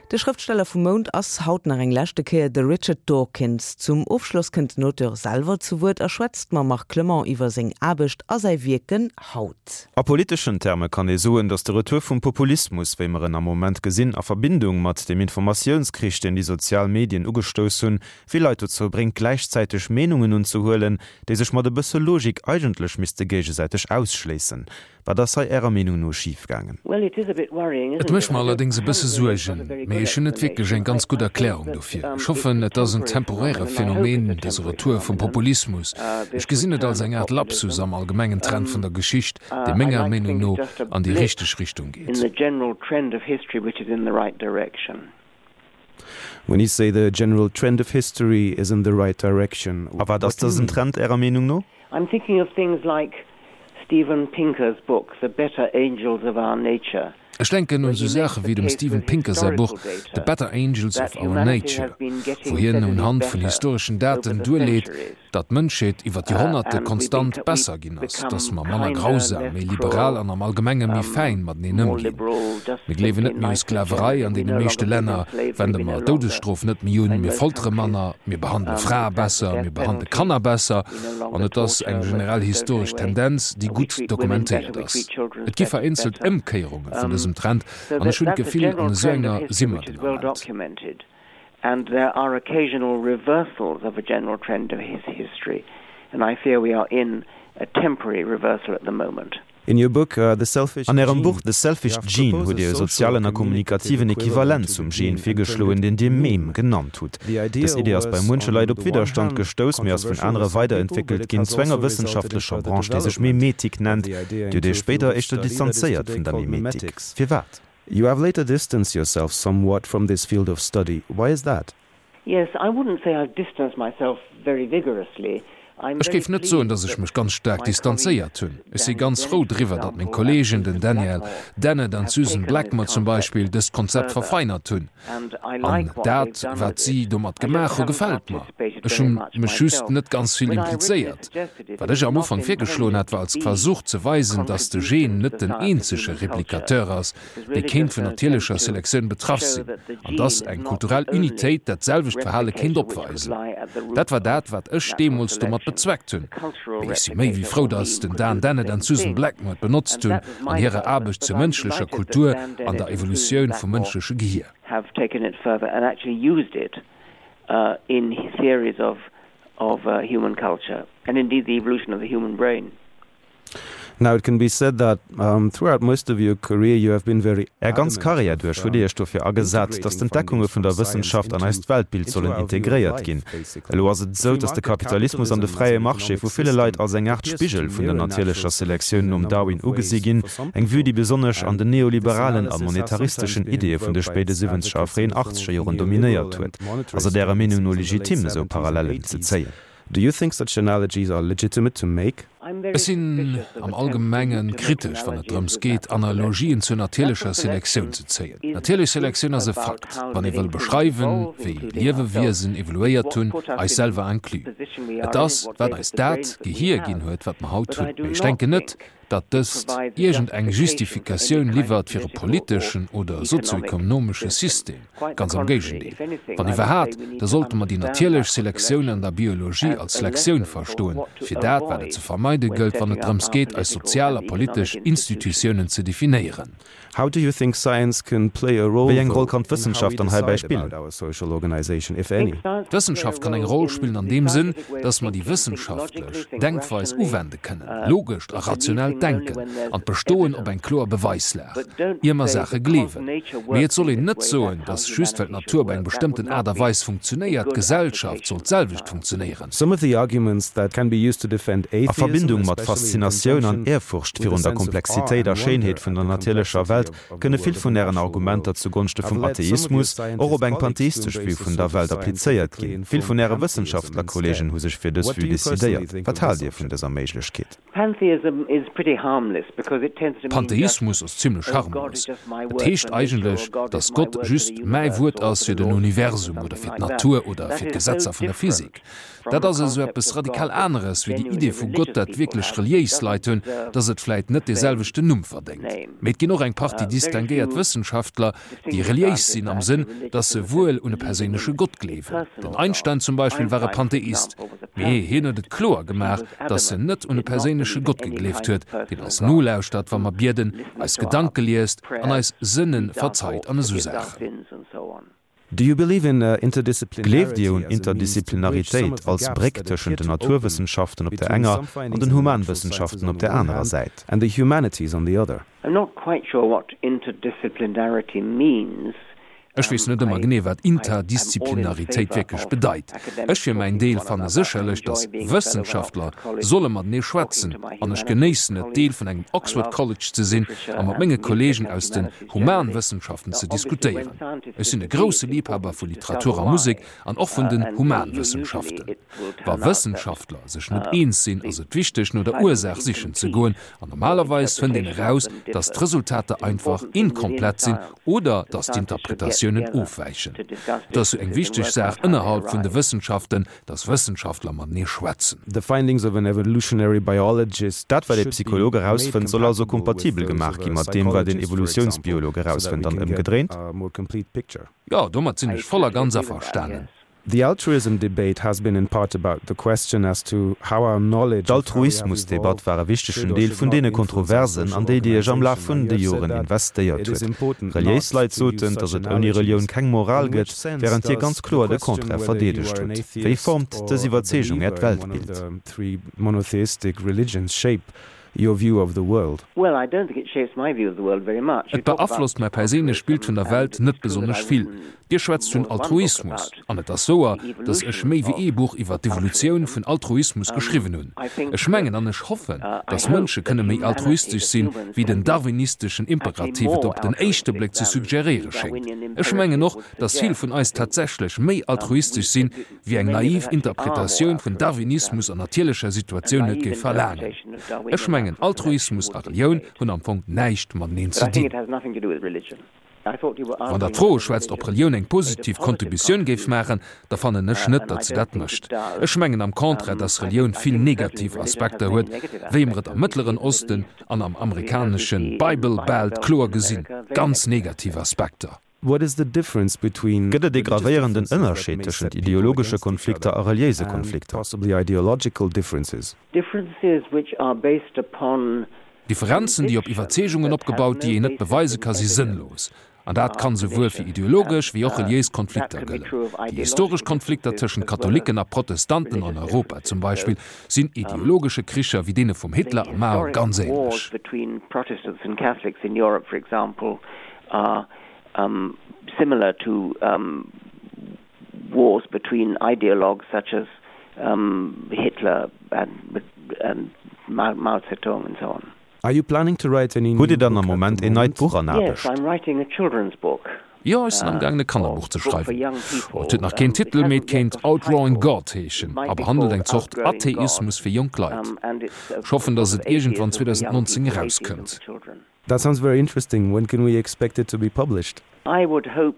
De Schrëftsteller vum Mount ass haut nach eng leschte Kéier de Richard Dawkins. Zum Ofschloss kënnt den Auteur selwer zu Wuert a schwätzt mam Marc Clement iwwer seng Aarbecht a säi Wierken haut. A politeschen Terme kann ee soen, datt de Retour vum Populismus, wéi mer en am Moment gesinn, a Verbindung mat dem Informatiounskrich, deen déi sozial Medien ugestouss hunn, vill Leit dozou bréngt, gläichzäiteg Meenungen unzehuelen, déi sech mat e bësse Logik eigentlech misste géigesäiteg ausschléissen. Wat ass hei Ärer Meenung no schif gaangen? Et mécht mer allerdéngs e bësse Suergen, mee ech hunn net wierklech eng ganz gutt Erklärung dofir. Ech hoffen, et ass en temporäre Phänomen, dëse Retour vum Populismus. Ech gesinn et als eng Aart Lapsus am allgemengen Trend vun der Geschicht, dee menger Meenung no an déi richteg Richtung geet. When you say the general trend of history is in the right direction, A wat ass dësen Trend Ärer Meenung no? I'm thinking of things like Steven Pinker's book The Better Angels of Our Nature, Ech denken un esou Saache wéi dem Steven Pinker säi Buch The Better Angels of Our Nature, wou hien unhand vun historeschen Daten duerleet, datt d'Mënschheet iwwer d'Joerhonnerte konstant besser ginn ass, datt mer manner grausam, méi liberal an am Allgemenge méi fäin mateneen ëmginn. Mir gleewen net méi u Sklaverei, an deene meeschte Länner wende mer d'Doudesstrof net méi un, mir foltere manner, mir behandele Frae besser, mir behandele Kanner besser an et ass eng generell historesch Tendenz, déi gutt dokumentéiert ass. Et gi vereenzelt Ëmkéierunge vun dësem Trend an ech hunn d'Gefill, an esou enger si mer den Ament. And there are occasional reversals of a general trend of history, and I fear we are in a temporary reversal at the moment. In your book The Selfish An Ärem Buch The Selfish Gene hutt Dir e sozialen a kommunikativen Equivalent zum Gen virgeschloen, deen Dir Meme genannt hutt. Dës Idee ass bei muenche Leit op Widderstand gestouss, mee ass vun anere weiderentwéckelt ginn zu enger wëssenschaftlecher Branche, déi sech Memetik nennt. Dir hutt Iech spéider éischter distanzéiert vun der Memetik. Firwat? You have later distanced yourself somewhat from this field of study. Why is that? Yes, I wouldn't say I've distanced myself very vigorously. I'm Ech very géif net soen, pleased datt ech that mech ganz staark my colleagues distanzéiert hunn. Ech si Daniel ganz Dennett, frou for driwwer, datt meng example, and Kolleegen, Susan den Daniel Blackmore, Dennett an have d'Susan taken this Blackmore zum concept Beispill, dëst Konzept further verfeinert hunn. and I An like what they've dat, done wat with si it. domat I just gemaach hu, haven't gefält mer. participated Ech very hu much mech just myself. net ganz vill When I originally implizéiert. suggested it, Wat it ech was am not Ufank virgeschloen intended hat, to war als be Versuch ze a weisen, datt de Gen contribution to net the den science of eenzege human culture. Replikateur ass, dee kéint vun natierlecher Selektioun betraff sinn, an dass eng kulturell Unitéit dat selwecht Verhale kéint opweisen. Dat war dat, wat ech deemools domat bezweckt hunn. Mee ech si méi wéi frou, dass den Dan Dennett an d'Susan Blackmore et benotzt hunn an hirer Aarbecht zur mënschlecher Kultur an der Evolutioun vum mënschleche Gehier. Now it can be said that throughout most of your career you have been very Är ganz adamant Karriär of duerch hutt Dir Iech dofir agesat, integrating datt d'Entdeckunge findings vun from der science Wëssenschaft an into eist Weltbild into sollen our view of integréiert life ginn. basically. Elo ass et The esou, free datt de market Kapitalismus an de capitalism as fräie an Marché economic vu ville Leit system als eng Aart appears to Spigel vun der mirror natierlecher natural Selektioun selection in a nom number Darwin of ugesi ways ginn, for some eng Vue, people, déi besonnesch an and den this neoliberalen a analysis has sometimes monetaristeschen been Ideeë vun de invoked by spéide its siwwenzeger a advocates in fréien the form achtzeger of Joren neoliberal dominéiert and huet. Ass et monetarist Ärer Meenung no movements in the late legitim, esou seventies and Parallellen ze eighties. zéien? Do you think such analogies are legitimate to make? Ech sinn am Allgemenge kritesch, wann et drëms geet, Analogien zur natierlecher Selektioun ze zéien. Natierlech Selektioun ass e Fakt, wann ee wëll beschreiwen, wéi Liewewiesen evoluéiert hunn, eis selwer inclus. Et ass, wat eis dat Gehier ginn huet, wat mer haut hunn. Mee ech denken net, datt dëst iergend eng Justifikatioun liwwert fir e politeschen oder sozioekonomesche System, ganz am Géigendeel. Wann iwwerhat, da sollte mer déi natierlech Selektioun an der Biologie als Lektioun verstoen, fir dat, wat et ze vermeide gëllt, wann et drëms geet, eis sozial a politesch Institutiounen ze definéieren. How do you think science can play a role Wéi eng Roll though kann in how we d'Wëssenschaft dann heibäi decide spillen? about our social organization, if any? D'Wëssenschaft kann eng Roll spillen an deem Sënn, dass mer déi wëssenschaftlech Denkweis uwende kënnen, logescht a rationellt Denken an d'Bestoen op eng kloer Beweislag, ier mer Saache gleewen. Mee et soll een net soen, dass just well d'Natur op eng bestëmmten Aart a Weis funktionéiert, d'Gesellschaft soll d'selwecht funktionéieren. Some of the arguments that can be used to defend A atheism, Verbindung mat especially in Faszinatioun an conjunction Ehrfurcht with a virun der sense of awe Komplexitéit a and wonder Schéinheet vun at der the natierlecher complexity Welt, of of the kënne world vill of the vun Ären natural Argumenter world, zu Gonschte have vum led some of your Atheismus och op scientist eng colleagues to pantheistesch Vue embrace a vun der sort of Welt applizéiert scientifically ginn. Vill vun informed Äre pantheism Wëssenschaftlerkolleegen instead. hu sech fir dës What Vue do you personally decidéiert. think Wat of haalt this Dir vun option? dëser Méiglechkeet? Pantheism is pretty. Pantheismus ass zimlech harmlos. Et heescht eigentlech, datt Gott just mäi Wuert ass fir den Universum oder fir d'Natur oder fir d'Gesetzer vun der Physik. Dat ass esou eppes radikal aneres wéi déi Idee vu Gott, dat wierklech reliéis Leit hunn, datt et vläit net dee selwechten Numm verdéngt. Mee et ginn och eng Partie distinguéiert Wëssenschaftler, déi reliéis sinn am Sënn, datt se wuel un e perséinleche Gott gleewen. Den Einstein zum Beispill war e Pantheist, mee hien huet et kloer gemaach, datt en net un e perséinleche Gott gegleeft huet, deen eis nolauschtert, wa mer bieden, eis Gedanke liest an eis Sënne verzeit an esou Saachen. Do you believe in interdisciplinarity Gleeft Dir un Interdisciplinaritéit als Bréck tëschent den Naturwëssenschaften op der enger an den Humanwëssenschaften op der anerer Säit? And the humanities on the other? I'm not quite sure what interdisciplinarity means. Ech weess net ëmmer genee, wat Interdisciplinaritéit wierklech bedeit. Ech fir mäin Deel fanne sécherlech, datt Wëssenschaftler solle matenee schwätzen, an ech genéissen et, Deel vun engem Oxford College ze sinn a mat menge Kolleegen aus den Humanwëssenschaften ze diskutéieren. Ech sinn e grousse Liibhaber vu Literatur a Musek an och vun den Humanwëssenschaften. Wa Wëssenschaftler sech net eens sinn, ass et wichteg, no der Ursaach sichen ze goen, an normalerweis fënnt een eraus, datt d'Resultater einfach inkomplett sinn oder datt d'Interpretatiounen ofwäichen. Et ass jo eng wichteg Saach ënnerhalb vun de Wëssenschaften, datt Wëssenschaftler matenee schwätzen. The findings of an evolutionary biologist Dat, wat ee Psycholog erausfënnt, soll also kompatibel gemaach gi mat deem, wat een Evolutiounsbiolog erausfënnt, an ëmgedréint? Jo, domat sinn ech voll a ganz averstanen. The altruism debate has been in part about the question as to how our knowledge of how we have D'Altruismusdebatt evolved war e should wichtegen or Deel should vun not deene influence our Kontroversen, social an déi Dir Iech am Laf organization. vun Now de you have said Joren that investéiert it is huet. important Reliéis not Leit to use soten, such datt et ouni Relioun analogies. keng Moral In which gëtt, sense wärend Dir does ganz the kloer de question Contraire whether you verdeedegt are an hutt. Wéi atheist formt dës or a Iwwerzeegung Äert believer in one of Weltbild? the three monotheistic religions shape your view of the world? Well, I don't think it shapes my view of the world very much. You Et talk about beaflosst mäi perséinlecht Bild vun der altruism, Welt and net it's true that besonnesch I've vill. written Dir schwätzt more vun than one book Altruismus, about an et ass wouer, the datt ech evolution méi wéi of ee Buch iwwer d'Evolutioun altruism. vun Altruismus geschriwwen hunn. I think Ech mengen that an ech hoffen, I datt hope Mënsche that kënne méi humanity, altruistesch that sinn, humans wéi can den be darwinisteschen actually Imperativ et more op den éischte altruistic Bléck ze than the suggeréiere schéngt. Darwinian Ech mengen imperative och, would datt vill suggest. vun I eis think tatsächlech méi we altruistesch sinn, that wéi eng many of us naiv actually are more Interpretatioun vun altruistic Darwinismus than an natierlecher a Situatioun et naive géif verlaangen. interpretation of Ech Darwinian mengen, natural selection Altruismus would a Relioun dictate. hunn am Fong näischt mateneen But ze I think dinn. it has nothing to do with religion. I thought you were Wann Der asking d'Fro whether schwätzt, ob religion Relioun eng made a positiv positive Contributioun géif contribution, maachen, da fannen ech net, and datt I se don't dat think it mécht. does. Ech mengen am Contraire, datt I Relioun think, I vill think certainly negativ religion has Aspekter many huet, negative wéi mer aspects, et am as we see Mëttleren in the Middle Osten East an am as we amerikanesche see in Bible Bible Belt Belt kloer in gesinn, America, very ganz negative negativ aspects. Aspekter. What is the difference between Gëtt et ee religious gravéierenden differences that Ënnerscheed may tëschent set people ideologesche against each Konflikter other a reliéise and Konflikter? possibly ideological differences? Differences which are based upon Differenzen, déi op conviction Iwwerzeegungen that have opgebaut, déi no een net basis beweise in ka, si evidence sënnlos. An dat are kann souwuel fir pernicious. ideologesch And wéi och reliéis that Konflikter can be gëllen. true of Déi historesch ideological Konflikter differences tëschent as well as Katholicken a Protestanten an religious Europa zum differences. Beispill So sinn ideologesche Kricher wéi deene vum the Hitler a Mao historic ganz wars ähnlech. between Protestants and Catholics in Europe, for example, are similar to wars between ideologues such as Hitler and and Mao Zedong and so on. Are you planning to write any Hutt new Dir dann book am at the Moment een neit moment? Buch an Yes, Aarbecht? I'm writing a children's book. Jo, ech sinn am gaangen e Kannerbuch ze Book for schreiwen. young Oh, et people. huet nach keen It Titel, mee hasn't et yet kéint got a Outdrawing title. God It heeschen might a be behandelt called eng Zort Outgrowing God. Atheismus fir jonk Leit. And it's a Ech hoffen, sort datt of et iergendwann atheism for young 2019 people, atheism erauskënnt. for children. That sounds very interesting. When can we expect it to be published? I would hope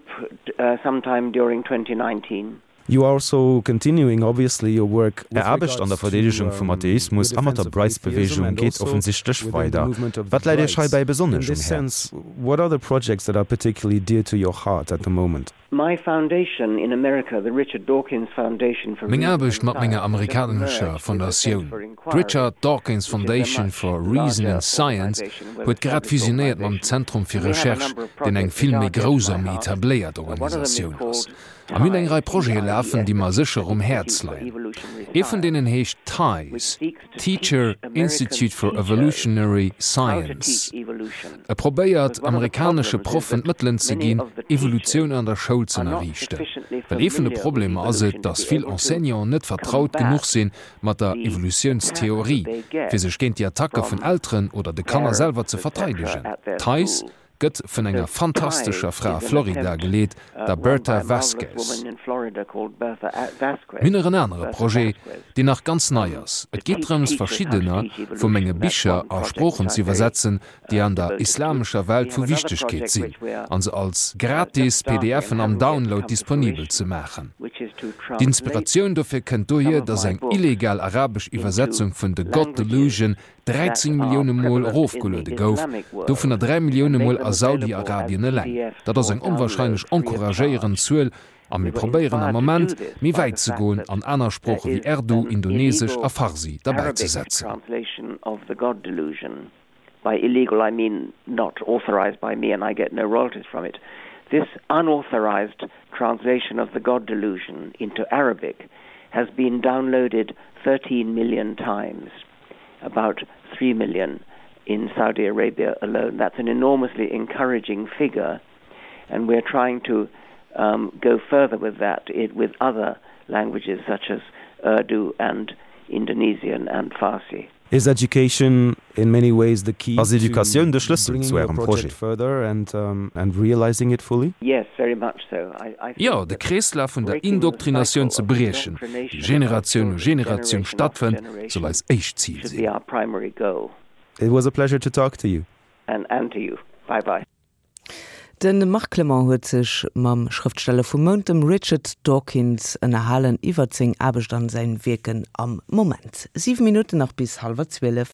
sometime during 2019. You are also continuing obviously your work Är with Aarbecht an der regards to Verdeedegung vum your Atheismus a mat defense der of atheism Brights-Beweegung and geet also offensichtlech within the weider. movement of the Wat läit Iech Brights. heibäi In besonnesch um this Häerz? sense, what are the projects that are particularly dear to your heart at the moment? My foundation in America, the Richard Dawkins Foundation for Meng Reason Aarbecht and mat menger Science, has just amerikanescher merged with the Center Fondatioun, for Inquiry, d'Richard Dawkins which is a Foundation much for Reason larger and Science, organization, well huet grad established fusionéiert mam organization. Zentrum fir And we have a Recherche, number of deen eng projects vill which méi are dear to grouss my a méi heart. etabléiert One of them is Organisatioun ass. called A mir hunn eng TIES, Rei Projete lafen, T-I-E-S, déi the mer Teacher sécher um Institute Häerz for leien. Evolutionary Ee vun Science, deenen heescht which TIES, seeks to teach Teacher American Institute for teachers Evolutionary how to Science. teach evolution. E probéiert, Because one of the amerikanesche problems is Proffen that d'Mëttelen ze many ginn, of the teachers Evolutioun an der Schoul ze are not ënnerriichten. sufficiently Well ee vun de familiar with Problemer ass et, evolution to datt be vill able to Enseignanten net vertraut combat genuch sinn mat der the attacks that Evolutiounstheorie, they fir get sech géint déi Attacke vun from Elteren oder de Kanner selwer parents, ze etc. verteidegen. at their TIES school. Gëtt vun enger fantastescher Fra a Florida geleet, der Bertha Vasquez. Mir hunn nach en anere Projet, deen nach ganz nei ass. Et geet drëms, verschiddener vu menge Bicher a Sproochen ze iwwersetzen, déi an der islamescher Welt vu Wichtegkeet sinn, a se als gratis PDFen am Download disponibel ze maachen. D'Inspiratioun dofir kënnt dohier, datt eng illegal arabesch Iwwersetzung vun The God Delusion 13 Millioune Mol erofgeluede gouf, dovunner 3 Millioune Mol a Saudi-Arabien eleng. Dat ass eng onwahrscheinlech encouragéierend Zuel a mir probéieren am Moment, méi wäit ze goen an aner Sprooche wéi Erdu, Indonesesch a Farsi derbäi ze setzen. about 3 million in Saudi Arabia alone. That's an enormously encouraging figure and we're trying to um, go further with that it, with other languages such as Urdu and Indonesian and Farsi. Is education in many ways the key Ass Educatioun de Schlëssel zu Ärem Projet? further and um, and realizing it fully? Yes, very much so. I, I Jo, de Kreeslaf vun der Indoktrinatioun ze briechen, déi Generatioun u Generatioun stattfënnt, soll eis éischt Zil sinn. It was a pleasure to talk to you. And and to you. Bye bye. De Marc Clement huet sech mam Schrëftsteller vum Mount, dem Richard Dawkins, ënnerhalen iwwert seng Aarbecht an säin Wierken am Moment. 7 Minutten nach bis hallwer 12.